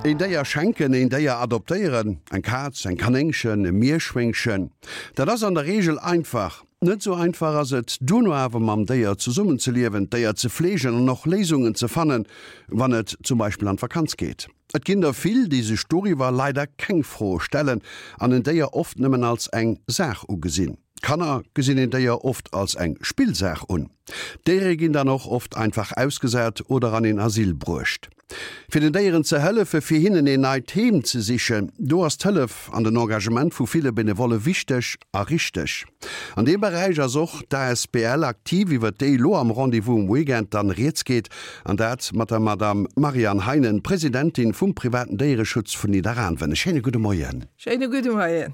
Een Déier schenken, een Déier adoptéieren, eng Kaz, eng Kanéngchen, e Mierschwéngchen, dat ass an der Reegel einfach. Net esou einfach ass et duerno awer mam Déier zesummenzeliewen, d'Déier ze fleegen an och Léisungen ze fannen, wann et zum Beispill an d'Vakanz geet. Et ginn der vill, déi sech doriwwer leider keng Froe stellen an en Déier oft nëmmen als eng Saach ugesinn. Kanner gesinn een Déier oft als eng Spillsaach un. D'Déiere ginn dann och oft einfach ausgesat oder an een Asyl bruecht. Fir den Déieren ze hëllefe fir hinnen een neit Heem ze sichen, do ass d'Hëllef an den Engagement vu ville Benevolle wichteg a richteg. An deem Beräich ass och d'ASBL aktiv, iwwer déi elo am Rendez-vous um Weekend dann rieds geet, an dat mat der Madame Marianne Heinen, Presidentin vum privaten Déiereschutz vun Nidderaanwen. E schéine gudde Moien. Schéine gudde Moien.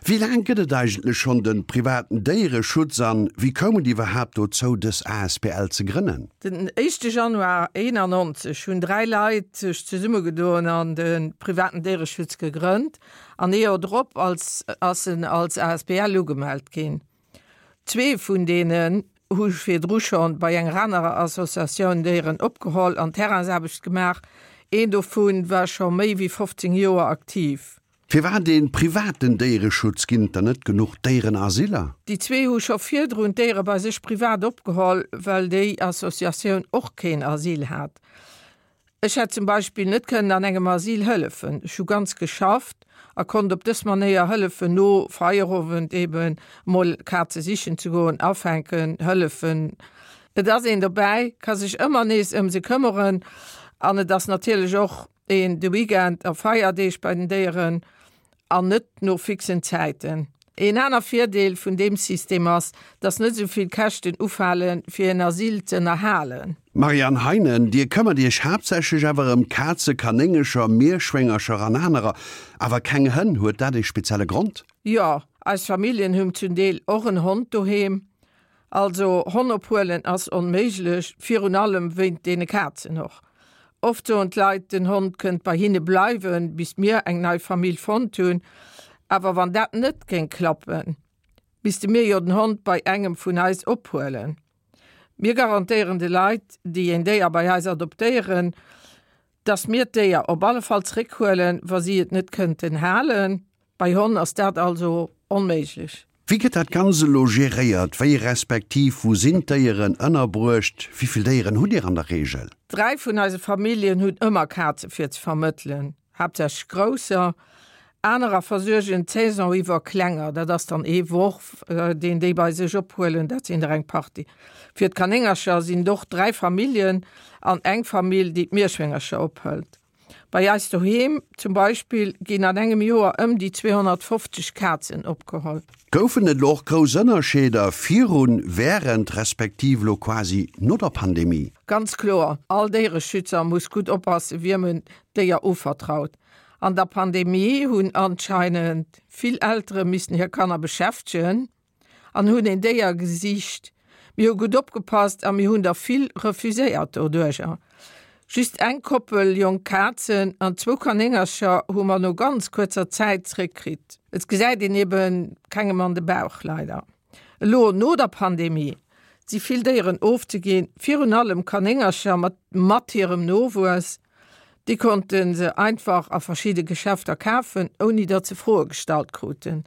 Wéi laang gëtt et eigentlech schonn de privaten Déiereschutz an wéi koum et iwwerhaapt dozou, dës asbl ze grënnen? Den éischte Januar 91 hunn 3 Leit sech zesummegedoen an de privaten Déiereschutz gegrënnt an ee Joer drop als ass en als asbl ugemellt ginn. Zwee vun deenen hu virdru schonn bei enger anerer Associatioun Déieren opgeholl an Terrainsaarbecht gemaach, een dovu war scho méi wéi 15 Joer aktiv. Firwat ee privaten Déiereschutz? Ginn et dann net genuch Déierenasyler? Déi zwee hu scho virdrun d'Déiere bei sech privat opgeholl, well déi Associatioun och keen Asyl hat. Ech hätt zum Beispill net kënnen an engem Asyl hëllefen. Ech hu ganz geschafft a konnt op dës Manéier hëllefen, no Feierowend eben emol Kaze sichen ze goen, afänken, hëllefen. Et ass een dobäi, ka sech ëmmer nees ëm se këmmeren an et ass natierlech och een de Weekend a Feierdeeg bei den Déieren an net no fixen Zäiten. Een aner Virdeel vun deem System ass, dass net esou vill Käschten ufalen, fir een Asyl ze ënnerhalen. Marianne Heinen, Dir këmmert Iech haaptsächlech awer ëm Kaze, Kanéngercher, Mierschwéngercher an anerer, awer keng Hënn. Huet dat ee spezielle Grond? Jo, eis Familljen hunn zum Deel och en Hond doheem. Also Honn ophuelen ass onméiglech, virun allem wéint deene Kazen och. Oft soen d'Leit, den Hond kënnt bei hinne bleiwen, bis mir eng nei Famill fonnt hunn. Awer wann dat net géing klappen, misste mir jo den Hond bei engem vun eis ophuelen. Mir garantéieren de Leit, déi een Déier bei eis adoptéieren, dass mir d'Déier op alle Fall zréckhuelen, wa si et net kënnten halen. Bei Honn ass dat also onméiglech. Wéi gëtt dat Ganzt elo geréiert? Wéi respektiv wou sinn d'Déieren ënnerbruecht? Wéi vill Déieren hutt Dir an der Reegel? Dräi vun eise Familljen hunn ëmmer Kaze fir ze vermëttelen, haaptsächlech grousser. Anerer versuergen d'Saison iwwer klenger, dat ass dann ee Worf, deen déi bei sech ophuelen, dat sinn der eng Partie. Fir d'Kanéngercher sinn et och dräi Familljen an eng Famill, déi d'Mierschwéngercher ophëlt. Bei eis doheem zum Beispill ginn an engem Joer ëm déi 250 Kazen opgeholl. Goufen et elo och grouss Ënnerscheeder virun, wärend respektiv elo quasi no der Pandemie? Ganz kloer, all Déiereschützer muss gutt oppassen, wiem en d'Déier uvertraut. An der Pandemie hunn anscheinend vill Eltere missen hir Kanner beschäftegen. An hunn een Déier gesicht. Mir hu gutt opgepasst a mir hunn der vill refuséiert doduercher. Just eng Koppel jonk Kazen an zwou Kanéngercher hu mer no ganz kuerzer Zäit zréckkritt. Et gesäit een eben kengem an de Bauch, leider. Elo no der Pandemie si vill Déieren ofzeginn, virun allem Kanéngercher mat mat hirem Nowuess. Déi konnte se einfach a verschidde Geschäfter kafen, ouni datt se Froe gestallt kruten.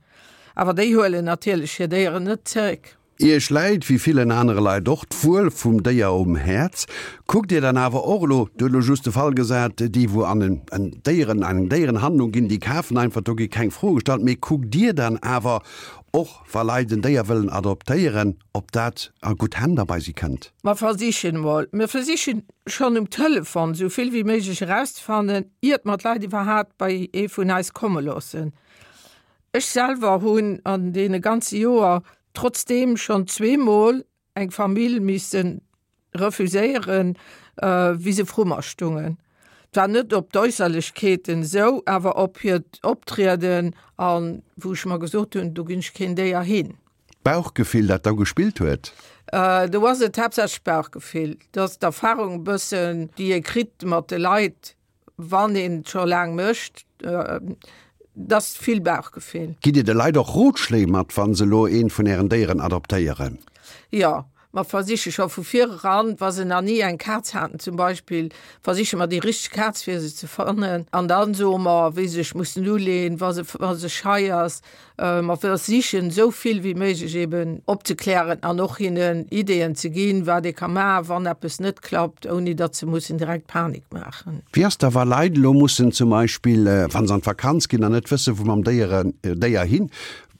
Awer déi huelen natierlech hir Déieren net zeréck. Iech läit, wéi villen anere Leit och, d'Wuel vum Déier um Häerz. Kuckt Dir dann awer och elo, Dir hutt elo just de Fall gesat, déi wou an en Déieren, eng Déierenhandlung ginn, déi kafen einfach, do gi keng Froe gestallt, mee kuckt Dir dann awer och, wa Leit en Déier wëllen adoptéieren, ob dat a gutt Hänn da bei si kënnt? Mer versichen emol, mir versichen schonn um Telefon esou vill wéi méiglech erauszefannen, iert mer d'Leit iwwerhaapt bei ee vun eis komme loossen. Ech selwer hunn an deene ganze Joer trotzdeem schonn zweemol eng Famill misse refuséieren, wéi se vru mer stungen. Zwar net op d'Äusserlechkeeten esou, awer op hiert Optrieden a wou ech mer gesot hunn, do ginn ech keen Déier hin. D'Bauchgefill, dat da gespillt huet? Do ass et haaptsächlech d'Bauchgefill. Dat ass d'Erfahrung e bëssen, déi ee kritt mat de Leit, wann een et scho laang mécht. Dat ass vill Bauchgefill. Gitt Dir de Leit och Rotschléi mat, wa se elo eent vun Ären Déieren adoptéieren? Jo. Mer versiche scho vu vir eran, wa se nach ni eng Kaz haten zum Beispill, versiche mer déi richteg Kaz fir se ze fannen. An da soe mer, wéi se sech mussen uleen, wa se, wa se schei ass. Mer versichen esou vill wéi méiglech eben opzeklären an och hinnen Ideeën ze ginn, wat ee ka maachen, wann eppes net klappt, ouni datt se mussen direkt Panik maachen. Wéi ass da, wa Leit elo mussen zum Beispill, wa se an d'Vakanz ginn an net wësse wou mam Déiere, Déier hin,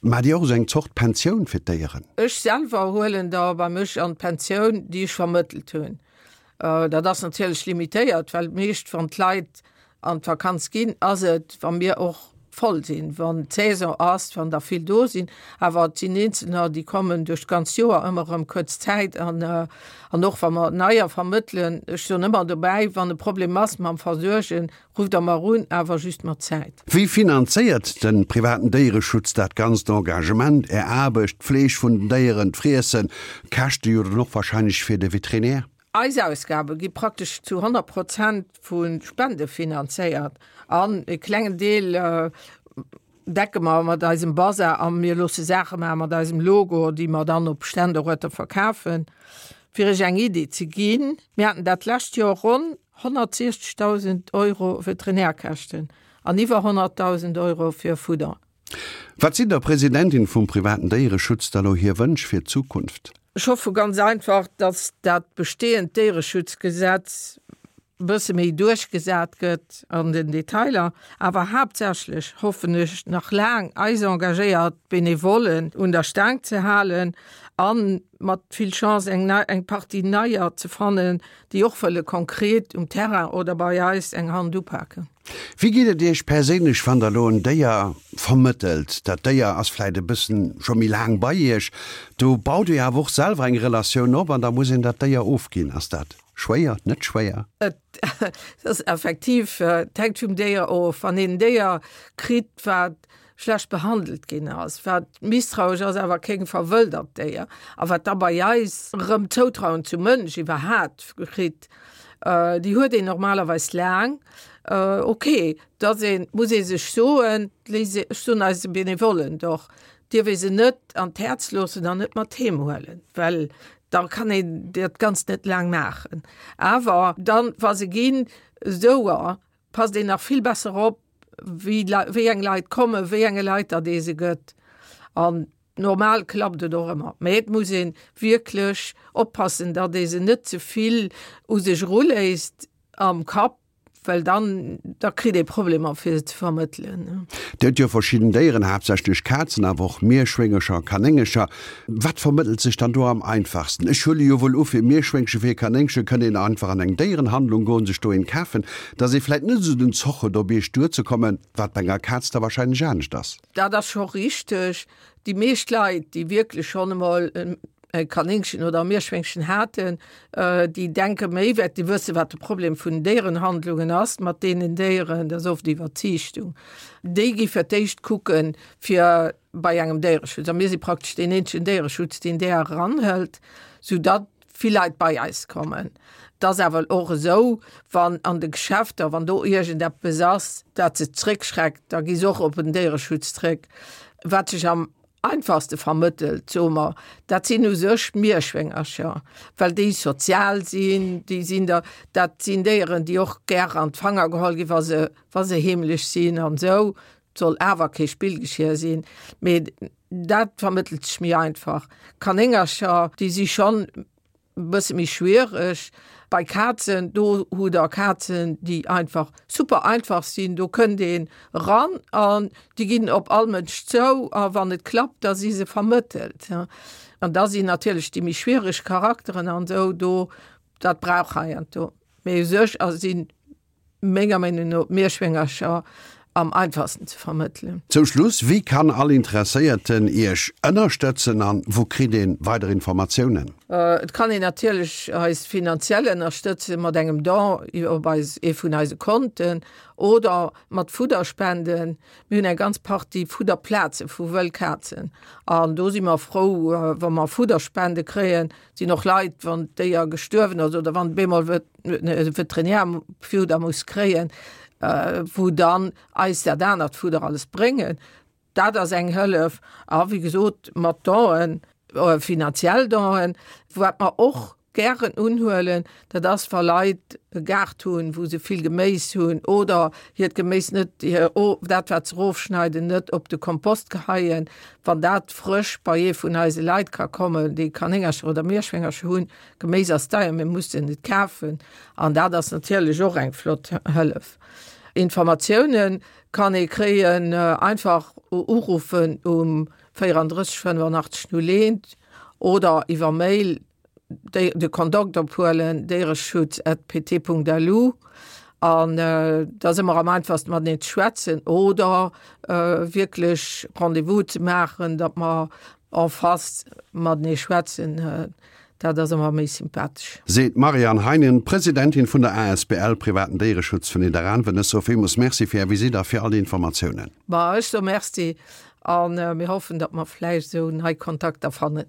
Maacht Dir och esou eng Zort Pensioun fir d'Déieren? Ech selwer huelen der bei mech an d'Pensioun, déi ech vermëttelt hunn. Dat ass natierlech limitéiert, well meescht wann d'Leit an d'Vakanz ginn, ass et, wa mir och voll sinn, wann d'Saison ass, wann der vill do sinn. Awer et sinn Eenzelner, déi kommen duerch d'ganz Joer ëmmer erëm kuerz Zäit an an och wa mer neier vermëttelen, ech soen ëmmer dobäi, wann e Problem ass mam Versuergen, Rufft der mer un, awer just mat Zäit. Wéi finanzéiert de privaten Déiereschutz dat ganzt Engagement, Är Aarbecht, d'Fleeg vun den Déieren, d'Friessen, d'Käschte jo dann och wahrscheinlech fir de Veterinär? Eis Ausgabe gi praktesch zu 100 Prozent vu Spende finanzéiert an e klengen Deel decke mer mat eisem Bazar a mir loosse Saache maache mat eisem Logo, déi mer dann op Ständeruerter verkafen. Fir Iech eng Iddi ze ginn, Mir haten dat lescht Joer ronn 160.000 Euro Veterinärkäschten an iwwer 100.000 Euro fir Fudder. Wat sinn der Presidentin vum privaten Déiereschutz da lo hir Wënsch fir d'Zukunft? Ech hoffe ganz einfach, datt dat bestehend Déiereschutzgesetz e bësse méi duerchgesat gëtt an den Detailer, awer haaptsächlech hoffen ech nach laang eis engagéiert Benevollen un der Staang ze halen a mat vill Chance eng nei, eng Partie neier ze fannen, déi och wëlle konkret um Terrain oder bei eis eng Hand upaken. Wéi geet et Iech perséinlech, wann Der elo en Déier vermëttelt? Dat Déier ass vläit e bëssen scho méi laang bei Iech, do baut Dir awer och selwer eng Relatioun op an da muss een dat Déier ofginn. Ass dat Schwéier, net schwéier? Et ass effektiv, et hänkt vum Déier of. Wann een en Déier kritt, wat schlecht behandelt ginn ass, wat misstrauesch ass, awer keng verwëldert Déier, a wat da bei eis erëm d'Zoutrauen zum Mënsch iwwerhat kritt, déi huet een normalerweis laang. Ok, da muss ee sech soen, ech soen eise Benevollen och, dierf ee se net an d'Häerz loossen an net mat heem huelen, well da kann een dat Ganzt net laang maachen. Awer dann, wa se ginn, esou passt een nach vill besser op, wéi wéi eng Leit kommen, wéi enge Leit datt ee se gëtt. An normal klappt et och ëmmer. Mä et muss ee wierklech oppassen, datt ee se net ze vill u sech eruléisst am Kapp, Well dann, da kritt ee Problemer fir se ze vermëttelen. Dir hutt jo verschidden Déieren, haaptsächlech Kazen, awer och Mierschwéngercher, Kanéngercher. Wat vermëttelt sech dann do am einfachsten? Ech huele jo wuel u fir Mierschwéngche, fir Kanéngche kënnt een einfach an eng Déierenhandlung goen, sech do een kafen, dass ee vläit net esou den Zoch huet op Iech duerzekommen, wat bei enger Kaz da wahrscheinlech anescht ass. Dat ass scho richteg. Déi meescht Leit, déi wierklech schonn emol e Kanéngchen oder e Mierschwéngchen haten, déi denke méi wäert, déi wësse wat de Problem vun Déierenhandlungen ass mat deenen Déieren, dat ass oft Iwwerziichtung. Déi gi fir d'éischt kucken, fir bei engem Déiereschutz, a mir si praktesch deen eenzegen Déiereschutz, deen där eranhëlt, soudatt vill Leit bei eis kommen. Et ass awer och esou, wann an de Geschäfter, wann do iergendeppes ass, dat se zréckschreckt, da gi se och op en Déiereschutz zréck. Wat sech am einfachste vermëttelt, soe mer, dat sinn u sech d'Mierschwéngercher, well déi sozial sinn, déi sinn der, dat sinn Déieren, déi och gär an d'Fanger geholl ginn, wa se, wa se heemlech sinn an esou. Et soll awer kee Spillgeschier sinn, mee dat vermëttelt sech méi einfach. Kanéngercher, déi si schonn Bësse méi schwiereg bei Kazen, do hutt der Kazen, déi einfach super einfach sinn, do kënnt een eran an déi ginn op all Mënsch zou a wann et klappt, da si se vermëttelt. An da sinn natierlech déi méi schwiereg Charakteren an esou do, dat brauch heiansdo, mee u sech sinn menger Meenung no d'Mierschwéngercher am einfachsten ze vermëttelen. Zum Schluss, Wéi kann all Interesséierten Iech ënnerstëtzen an wou kritt een weider Informatiounen? Et kann een natierlech eis finanziell ënnerstëtzen mat engem Don op eis ee vun eise Konten oder mat Fudderspenden. Mir hunn eng ganz Partie Fudderplaze vu wëll Kazen an do si mer frou wa mer Fudderspende kréien. Sinn och Leit, wann d'Déier gestuerwen ass oder wann bemol Veterinärfudder muss kréien, wou dann eis dat anert Fudder alles bréngen. Dat ass eng Hëllef. A wéi gesot, mat Donen. Finanziell Donen. Wat mer och gären unhuelen, dat ass wa Leit e Gaart hunn, wou se vill Geméis hunn oder hiert Geméis net, dat wat se erofschneiden, net op de Kompost geheien. Wann dat frësch bei ee vun eise Leit ka kommen, déi Kanéngercher oder Mierschwéngercher hunn, Geméis ass deier, mir mussen et kafen an dat ass natierlech och eng flott Hëllef. Informatioune kann ee kréien, einfach uruffen um 34 85 01 oder iwwer Mail de Kontakt ophuelen, déiereschutz@pt.lu an da si mer am einfachsten mateneen ze schwätzen oder wierklech Rendez-vous ze maachen, datt mer en face matenee schwätzen. Dat ass ëmmer méi sympathesch. Seet d'Marianne Heinen, Presidentin vun der asbl Privaten Déiereschutz vun Nidderaanwen. Ech soe villmools Merci fir Är Visitt a fir all déi Informatiounen. Ma ech soe Merci a mir hoffen, datt mer vläicht esou nei Kontakter fannen.